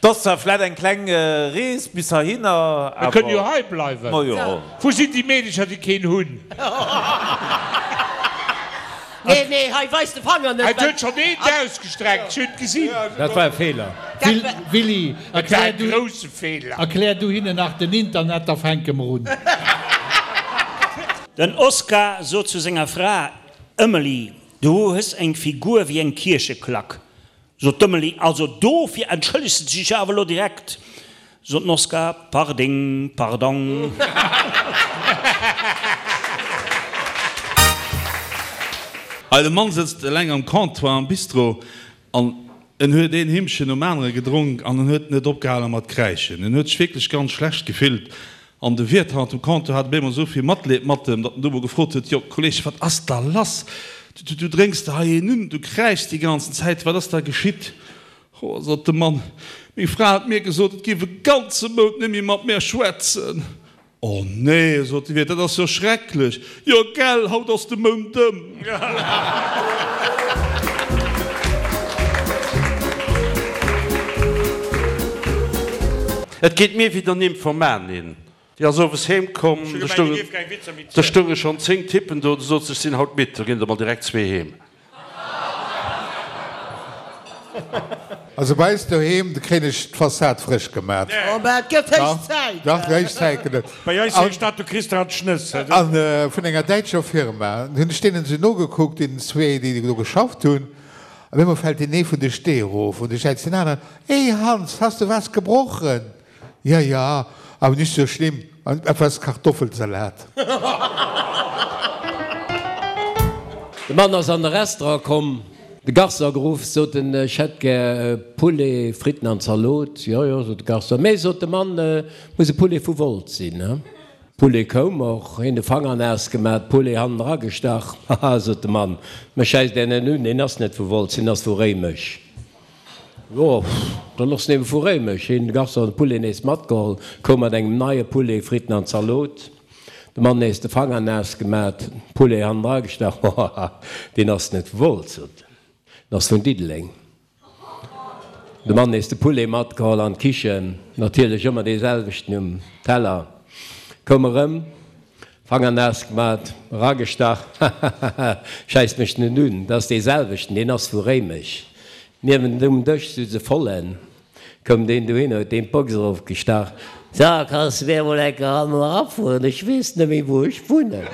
't ass zwar vläit eng kleng Rees bis heihinner, Mir kënnen jo hei bleiwen. Ma jo. Wou sinn déi Meedecher, déi keen hunn? Nee, nee, hei weis de Fanger net. Et huet schonn eent ausgestreckt, ech hunn et gesinn. Dat war e Feeler. Willy, erklär du, grousse Feeler. Erklär du hinnen nach den Internet, da fänke mer un. Den Oscar sot zu senger Fra, Emily, du hues eng Figur wéi eng Kiercheklack. Sot d'Emily, also dofir entschëllegs de dech awer elo direkt. Sot den Oscar, Parding, pardong. Hei, de Mann sëtzt eleng am Comptoir am Bistro an en huet een Himmchen nom anere gedronk an en huet net opgehale mat kräischen. En huet sech wierklech ganz schlecht gefillt an de Wiert hannert dem Comptoir hat op eemol esou vill Matleed mat em, datt en du mol gefrot huet, Jo, Kolleg, wat ass da lass? Du, du drénks der hei een un, du kräischs déi ganzen Zäit, wat ass da geschitt? Ho, sot de Mann, meng Fra huet mir gesot, et géif e ganze Mount net méi mat mär schwätzen. Oh nee, sot de Wiert, dat ass jo schrecklech. Jo gell, haut ass de Mount ëm. Et geet mir wéi der Nymphomanin. Déi ass owes heem komm, do stounge schonn 10 Typen do, du sot se, ech sinn haut midd, da ginn der mol direkt zwee heem. Also bei eis doheem, do kréien ech d'Fassad frësch gemat. Oh, mä et gëtt héich Zäit! Dach, héich Zäit gëtt et. Bei eis heescht dat, du kriss der an d'Schnëss. A vun enger däitscher Firma. Hunn ech deenen esou nogekuckt, deenen zwee, déi do geschafft hunn. Op eemol fält deen ee vun de Stee erof an du schäiz deen aneren, Hey Hans, hast du was gebrochen? Ja, ja, aber nicht so schlimm, etwas Kartoffelsalat. De Mann ass an de Restaurant komm, de Garçon geruff, sot en, ech hätt gär Poulet, Fritten an Zalot. Jo, jo, sot de Garçon, mee, sot de Mann, et muss e Poulet vu Wolz sinn, he? Poulet koum och, hien de Fanger naass gemat, Poulet hannen eragestach. Haha, sot de Mann, mech schäisst är net un, deen ass net vu Wolz, deen ass vu Réimech. Jo, dann ass en eben vu Réimech. Hien de Garçon de Poulet nees matgeholl, koum mat engem neie Poulet, Fritten an Zalot. De Mann nees de Fanger naass gemat, Poulet hannendra gestach. Hohaha, deen ass net vu Wolz, sot en, en ass vun Diddeleng. De Mann nees de Poulet matgeholl an d'Kichen, natierlech ëmmer dee selwechten um Teller. Koum erëm, Fanger naass gemat, eragestach, hahaha, schäisst mech net un, dat ass dee selwechten, deen ass vu Réimech. Niewent um Dësch sutz e Vollen, koum deen dohinner, huet deem d'Box erofgestach, So, kanns de mir emol eng Kéier hannen erafueren, ech weess net méi wou ech wunnen.